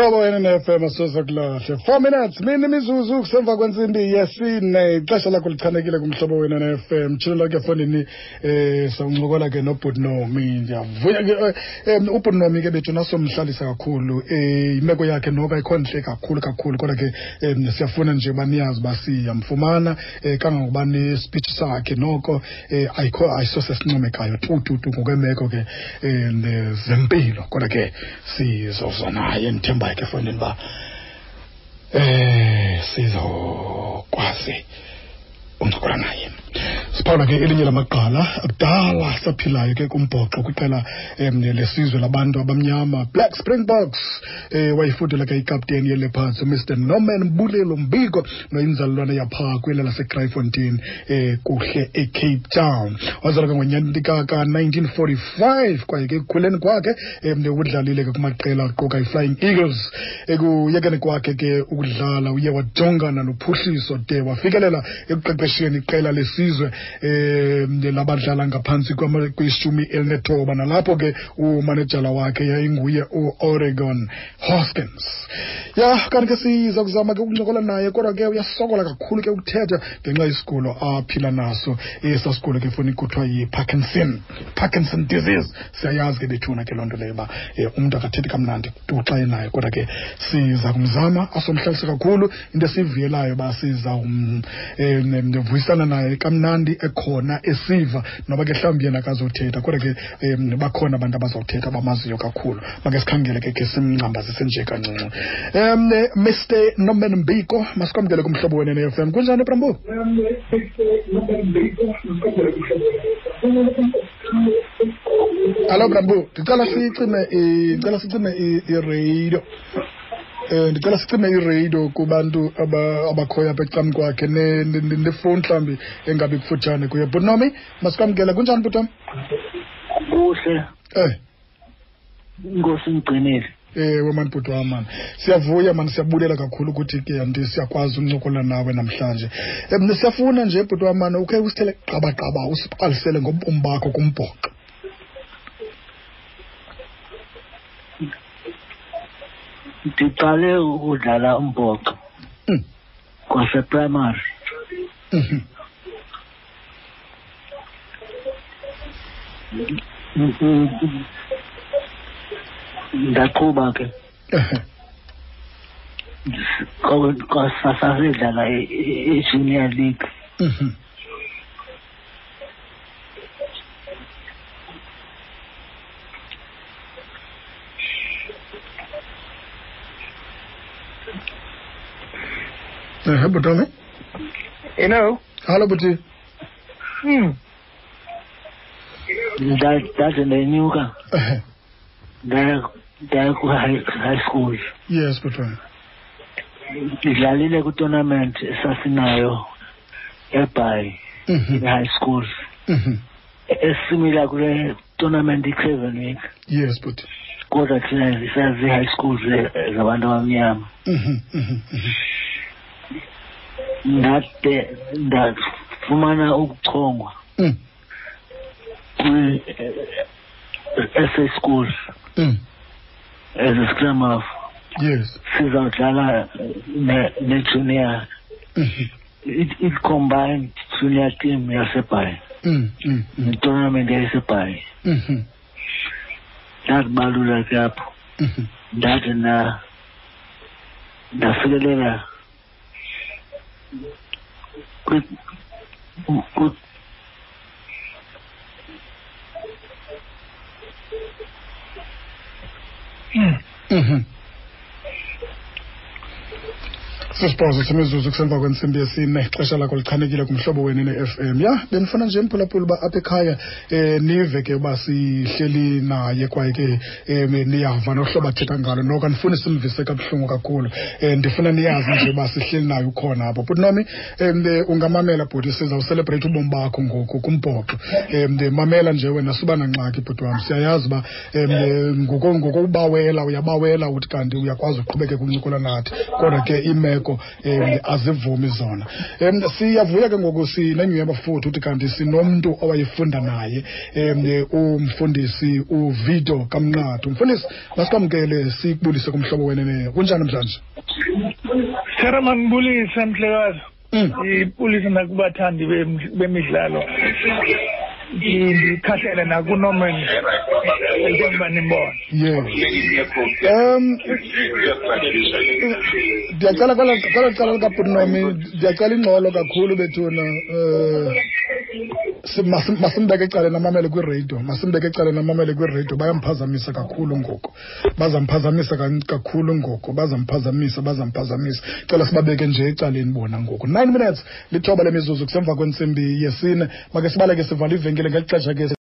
Mhlobo wena ne-FM asoze kulahle. 4 minutes mini imizuzu kusemva kwentsimbi yesine. Ixesha lakho lichanekile kumhlobo wena ne-FM. Tshilo lakhe efondini eh sawuncokola ke nobhuti Nomi. Ndiyavuya ke eh, ubhuti Nomi ke bethu nasomhlalisa kakhulu. Eh imeko yakhe noko ayikho ntle kakhulu kakhulu kodwa ke siyafuna nje uba niyazi uba siyamfumana kangangokuba ne-speech sakhe noko ayikho ayisosesincomekayo tu tu tu ngokwemeko ke zempilo kodwa ke sizoza naye ndithembayo ke efondini uba sizokwazi uncokola naye. Siphawula ke elinye lamagqala akudala saphilayo ke kumbhoxo kwiqela lesizwe labantu abamnyama Black Springboks. Wayifudula ke ikapteni yeLeopards uMr Norman Mbulelo Mbiko noyinzalelwane yapha kwela laseKraaifontein kuhle eCape Town. Wazalwa ke ngonyaka ka-1945 kwaye ke ekukhuleni kwakhe udlalile ke kumaqela aquka iFlying Eagles. Ekuyekeni kwakhe ke ukudlala uye wajongana nophuhliso de wafikelela ekuqeqesheni iqela lesizwe labadlala ngaphantsi kwishumi elinethoba, nalapho ke umanejala wakhe yayinguye uOregon Hoskins. Ya kanti ke siza kuzama ke ukuncokola naye, kodwa ke uyasokola kakhulu ke ukuthetha ngenxa yesigulo aphila naso. Esa sigulo ke foni kuthiwa yi-Parkinson, Parkinson disease. Siyayazi ke bethuna ke loo nto leyo uba umntu akathethi kamnandi tu xa enayo, kodwa ke siza kumzama asomhlalise kakhulu. Into esivuyelayo uba siza vuyisana naye kamnandi ekhona esiva, noba ke mhlawumbi yena akazothetha, kodwa ke bakhona abantu abazawuthetha abamaziyo kakhulu. Make sikhangele ke simngcambazise nje kancinci. Mr Norman Mbiko, masikwamkele kumhlobo wena ne-FM. Kunjani, Brambo? Hallo Brambo, ndicela sicime ndicela sicime iradio. Ndicela sicime iradio kubantu abakhoyo apha ecam kwakhe nefowuni mhlawumbi engabi kufutshane kuye. Bhuti Nomi, masikwamkele. Kunjani, bhuti wam? Kuhle. Inkosi ingigcinile. Ewe mani bhuti wam mani, siyavuya mani, siyabulela kakhulu ukuthi ke anti siyakwazi uncokola nawe namhlanje. Siyafuna nje bhuti wam mani ukhe usithele qabaqaba usibalisele ngobomi bakho kumbhoxo. Ndiqale ukudlala umbhoxo kwaseprimary. Ndaqhuba ke. Sasidlala i-junior league. Bhuti wami. Hello. Hallo bhuti. Ndaze ndenyuka. Ndaya ku high school. Yes, bhuti wami. Ndidlalile ku-tournament esasinayo eBhayi high school. Esimila kule tournament i-Craven Week. Yes, bhuti. Kodwa thina sazi high schools zabantu abamnyama. Ndade ndafumana ukuchongwa kwi SA schools as a scrum half. Yes. Sizawudlala ne junior. It combined junior team yaseBhayi. Ne-tournament yaseBhayi. Ndakubalula ke apho. Ndathi ndafikelela kwi Sisibhozo semizuzu kusemva kwentsimbi yesine, ixesha lakho lichanekile kumhlobo wenu ne-FM. Ya, bendifuna nje mphulaphula uba apha ekhaya nive ke uba sihleli naye kwaye ke niyava nohlobo athetha ngalo. Noko andifuni simvise kabuhlungu kakhulu. Ndifuna niyazi nje uba sihleli naye ukhona apho. Bhuti Nomi, ungamamela bhuti, sizawuselebreyitha ubomi bakho ngoku kumbhoxo. Mamela nje wena, suba nangxaki bhuti wam. Siyayazi uba ngokubawela uyabawela uthi kanti uyakwazi uqhubeke kuncokola nathi, kodwa ke imeko iimeko azivumi zona. Siyavuya ke ngoku sinenyhweba futhi uthi kanti sinomntu owayefunda naye, umfundisi uVito Kamnqathu. Mfundisi, masikwamkele sikubulise kumhlobo wenene. Kunjani namhlanje? Sithera, mandibulise mhlekazi. Ndibulise nakubathandi bemidlalo, ndikhahlele nakuNorman njengoba nimbona. Yes, ndiyacela kwela cala likabhutinomi, ndiyacela ingxolo kakhulu bethuna. Masimbeke ecaleni amamele kwiradio, masimbeke ecaleni amamele kwiradio. Bayamphazamisa kakhulu ngoku, bazamphazamisa kakhulu ngoku, bazamphazamisa, bazamphazamisa. Cela sibabeke nje ecaleni bona ngoku. 9 minutes, 9 lemizuzu kusemva kwentsimbi yesine. Make sibaleke, sivala ivenkile ngeli xesha ke.